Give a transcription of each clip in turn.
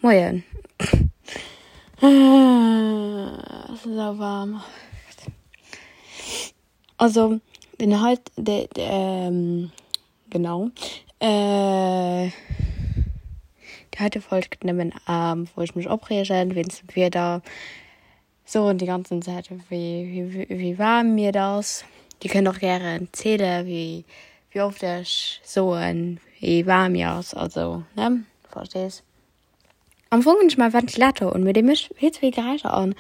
Moien. Et ass esou waarm. Also den heit de genau déi heite Folg gëtt nëmmen wou ech mech opreegen wéinst dem Wieder. Soen déi ganzen Zäit wéi wéi waarm mir et ass. Dir kënnt och gären ziele wéi wéi oft ech soen wéi waarm mir ass, also ne verstees. Am Fong hunn ech mäi Ventilator un, mee dee mécht vill ze vill Geräischer an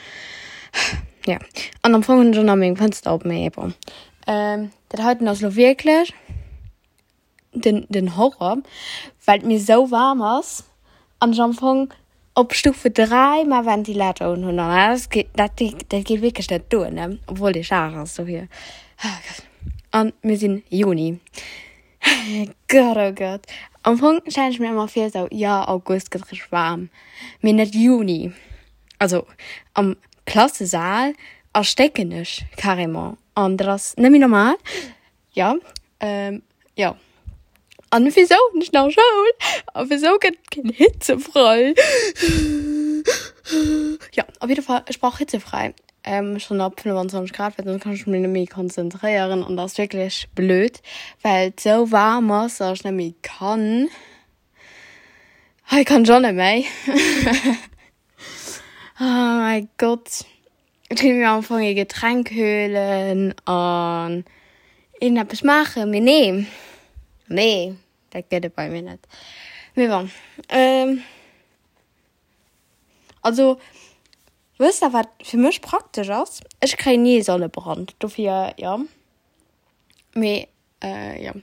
jo an am Fong hunn ech och nach meng Fënster op, mee bon. Dat heiten ass lo wierklech den den Horror, well et mir sou waarm ass an ech am Fong op Stufe 3 mäi Ventilator un hunn an dat geet dat dat geet wierklech net duer ne, obwuel dee schaarf ass dofir. An mir sinn Juni. Gott oh Gott. Am Fong stellen ech mir ëmmer vir sou, jo August gëtt richteg waarm, mee net Juni. Also am Klassesaal erstécken ech carrément an dat ass net méi normal. Jo, jo. An wisou hunn ech nach Schoul? A wisou gëtt et keen Hitzefrei? Jo, op jidde Fall, ech brauch Hitzefrei. Schonn ab 25 Grad, well soss kann ech mech net méi konzentréieren an dat ass wierklech blöd, well et sou waarm ass, datt ech net méi kann. Hei kann ech och net méi. Oh mäi Gott. Ech kéint mir am Fong ee Getränk huelen an iergendeppes maachen, mee nee, nee, dat gëtt et bei mir net. Mee bon, also wësst der wat fir mech praktesch ass? Ech kréien ni ee Sonnebrand, dofir jo. Mee jo.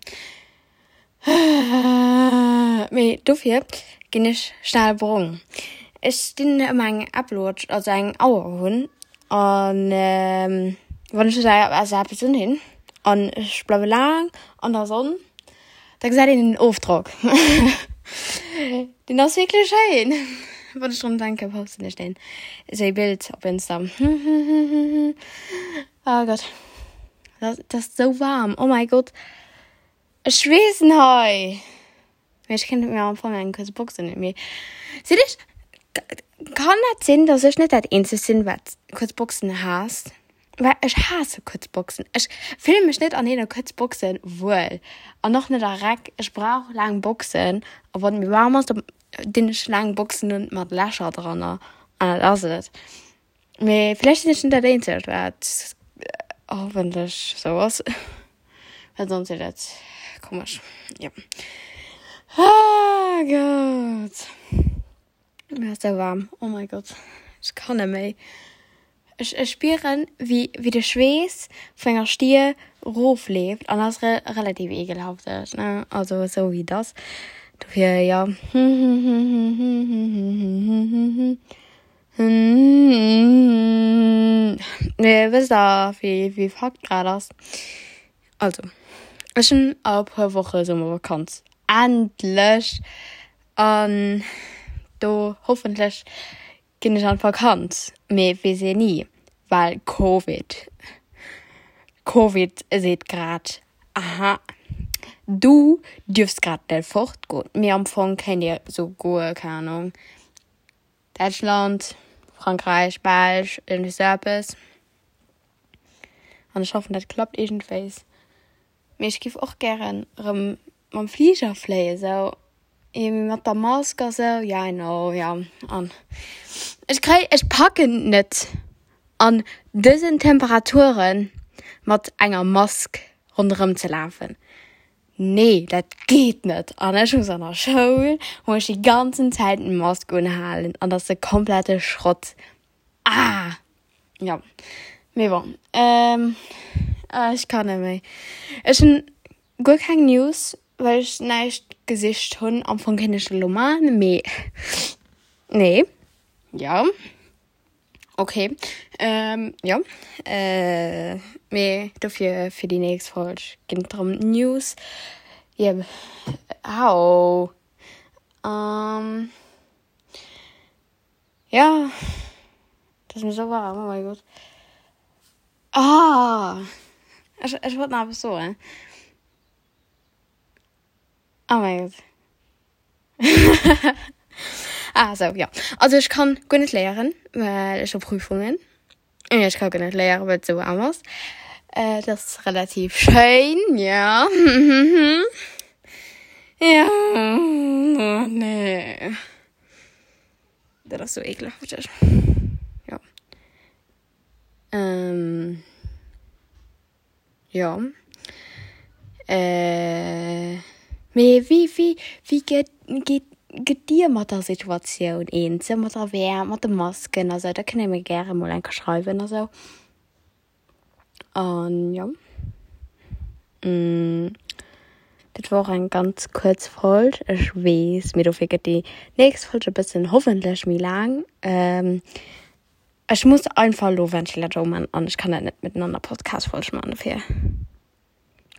Mee dofir ginn ech schnell brong. Ech dinn ëmmer eng Apple Watch, also eng Auer hunn an wann ech esou eppes unhinn an ech bleiwe laang an der Sonn, da gesäit een den Ofdrock. Deen ass wierklech schéin. Wann ech drun denken, posten ech deen esou ee Bild op Insta. Oh Gott. Dat ass sou waarm. Oh mäi Gott. Ech schweessen hei. Mee ech kéint mir am Fong eng kuerz Box unhunn. Mee sinn ech, kann dat sinn, dass ech net dat eenzegt sinn, wat kuerz Boxen haasst? Well ech haasse kuerz Boxen. Ech fille mech net an deene kuerz Boxen wuel. An och net a Räck. Ech brauch laang Boxen. A wann et méi waarm ass, da dinn ech laang Boxen un mat Lächer dranner. An dat ass et. Mee vläicht sinn ech net dat eenzegt wat hoffentlech sou ass, well sonst wier dat komesch, jo. Ah Gott, mir ass sou waarm, oh mein Gott, ech kann net méi. Ech ech spieren wéi wéi de Schweess vu menger Stier rofleeft an dat ass relativ ekelhafteg, ne, also sou wéi et ass. Dofir jo. Mee wësst der wéi wéi Fakt grad ass? Also ech hunn a e puer Woche Summervakanz, endlech! An do hoffentlech ginn ech an d'Vakanz, mee weess een ni, well Covid. Covid seet grad, aha du dierfs grad net fortgoen. Mee am Fong kéint ee souguer, keng Ahnung, Däitschland, Frankräich, Belsch, iergendwéi sou eppes. An ech hoffen, dat klappt iergendwéis. Mee ech giff och gären erëm mam Fliger fléien, sou mee mat der Mask a sou, ja I know, ja. An ech kréi, ech packen net an dësen Temperaturen mat enger Mask ronderëm ze lafen. Nee, dat geet net! An ech muss an der Schoul, muss ech déi ganzen Zäit d'Mask unhalen an dat ass de komplette Schrott. Ah! Jo, mee bon, ech kann net méi. Ech hunn guer keng News, well ech näischt gesicht hunn. Am Fong kéint ech dat elo maachen, mee nee, jo. Ok, jo, mee dofir fir déi nächst Folg ginn et erëm News. Jep, au. Jo, et ass mir esou waarm, oh mäi Gott. Ah, ech, ech wollt nach eppes soen. Oh mäi Gott. Ah sou, jo. Also ech kann guer net léieren, well ech hu Prüfungen. Ech ka guer net léieren, well et sou waarm ass. Äh, dat ass relativ schéin, ja. Ja, oh nee. Dat ass sou ekelhafteg. Jo. Ähm. Jo. Äh, mee wéi, wéi, wéi gëtt, geet, gëtt Dir mat der Situatioun eens? Sou mat der Wäermt, mat de Masken a sou? Da kënnt Dir mir gäre mol eng Kéier schreiwen a sou. An jo. Dat war och eng ganz kuerz Folg, ech weess, mee dofir gëtt déi nächst Folg e bëssen hoffentlech méi laang. Ech muss einfach elo Ventilator uman an ech kann dat net miteinander Podcast Folg man dofir.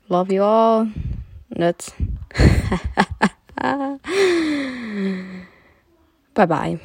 Love you all. Net. Bye bye.